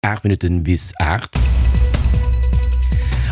8 Minutten bis 8.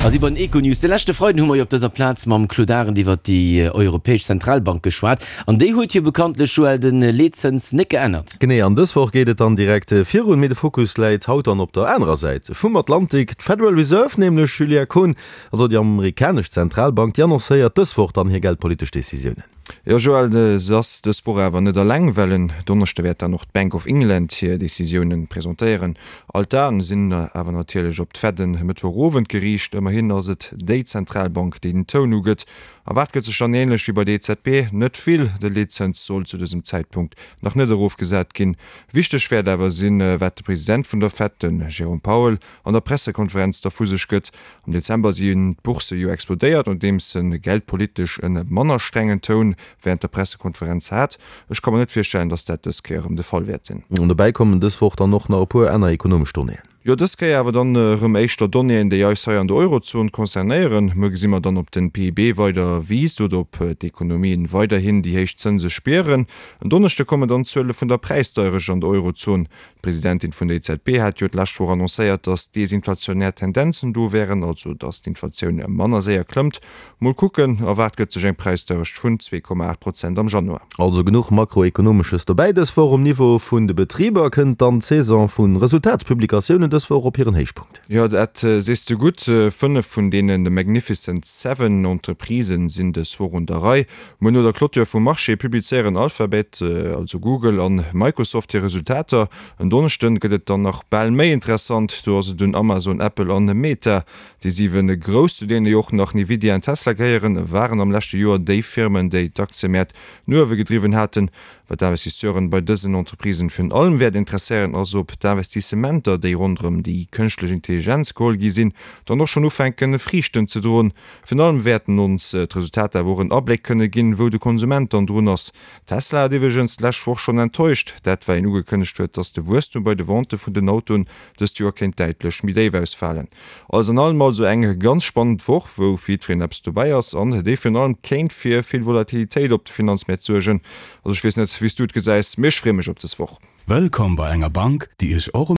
A si bei den Econews. De leschte Freiden hu mer jo op dëser Plaz mam Claude Arend iwwert déi Europäesch Zentralbank geschwat. An déi huet jo bekanntlech, Joël, de Leetzëns net geännert. Genee, an dës Woch geet et dann direkt virun. Mee de Fokus läit haut dann op der anerer Säit vum Atlantik. D'Federal Reserve nämlech, Julia Kohn, also déi amerikanesch Zentralbank, déi annoncéiert dës Woch dann hir geldpolitesch Decisiounen. Jo Joël, se ass dës Woch awer net eleng, well en Donneschde wäert dann och d'Bank of England hir Decisiounen presentéieren. All d'Aen sinn awer natierlech op d'Fed en Mëttwochowend geriicht. Ëmmerhin ass et déi Zentralbank, déi den Toun ugëtt. Erwaart gëtt sech dann änlech wéi bei der EZB net vill. De Leetzëns soll zu dësem Zäitpunkt nach net erofgesat ginn. Wichteg wäert awer sinn, wat de President vun der Fed, den Jerome Powell, an der Pressekonferenz da vu sech gëtt. Am Dezember sinn d'Boursse jo explodéiert, nodeems en geldpolitesch en manner strengen Toun wärend der Pressekonferenz hat. Ech ka mer net virstellen, datt dat dës Kéier erëm de Fall wäert sinn. An dobäi kommen dës Woch dann och nach e puer aner ekonomesch Donnéeën. Jo, dës Kéier awer dann erëm éischter Donnéeën, déi eis hei an der Eurozon concernéieren. Muer gesi mer dann, ob den PIB weider wiisst oder ob d'Ekonomien weiderhin déi héich Zënse spieren. En Donneschde kommen dann d'Zuele vun der Präisdeierecht an der Eurozon. D'Presidentin vun der EZB hat jo d'lescht Woch annoncéiert, datt desinflationär Tendenzen do wären, also datt d'Inflatioun manner séier klëmmt. Mol kucken, erwaart gëtt sech eng Präisdeierecht vun 2,8 Prozent am Januar. Also genuch Makroekonomesches dobäi dës Woch. Um Niveau vun de Betriber kënnt dann d'Saison vu Resultatspublikatiounen dës Woch op hiren Héichpunkt. Jo, dat sees de gutt. 5 vun deene Magnificent Seven Entreprisen sinn dës Woch un der Rei. Muer no der Clôture vum Marché publizéieren Alphabet, also Google, an Microsoft hir Resultater. En Donneschden gëtt et dann nach bal méi interessant, do ass et un Amazon, Apple an Meta. Déi 7 Grouss, zu deene jo och nach Nvidia an Tesla gehéieren, waren am leschte Joer déi Firmen, déi d'Aktiëmäert no uewe gedriwwen haten. Wat d'Investisseuren bei dësen Entreprisen virun allem wäert interesséieren, ass ob d'Investissementer, déi ronderëm déi kënschtlech Intelligenz geholl gi sinn, dann och schonn ufänken Friichten ze droen. Virun allem wäerten ons d'Resultater awer och en Abléck kënne ginn, wou de Konsument dann drun ass. Tesla hat iwwregens d'lescht Woch schonn enttäuscht, dat well een ugekënnegt huet, datt de Wuesstum bei de Vente vun den Autoen dëst Joer kéint däitlech méi déif ausfalen. Alles an allem also eng ganz spannend Woch, wou fir jiddwereen eppes dobäi ass an déi virun allem kéint fir vill Volatilitéit op de Finanzmäert suergen. Also ech weess net, wéi s du et gesäis, mee ech freeë mech op dës Woch. Wëllkomm bei enger Bank, déi Iech och.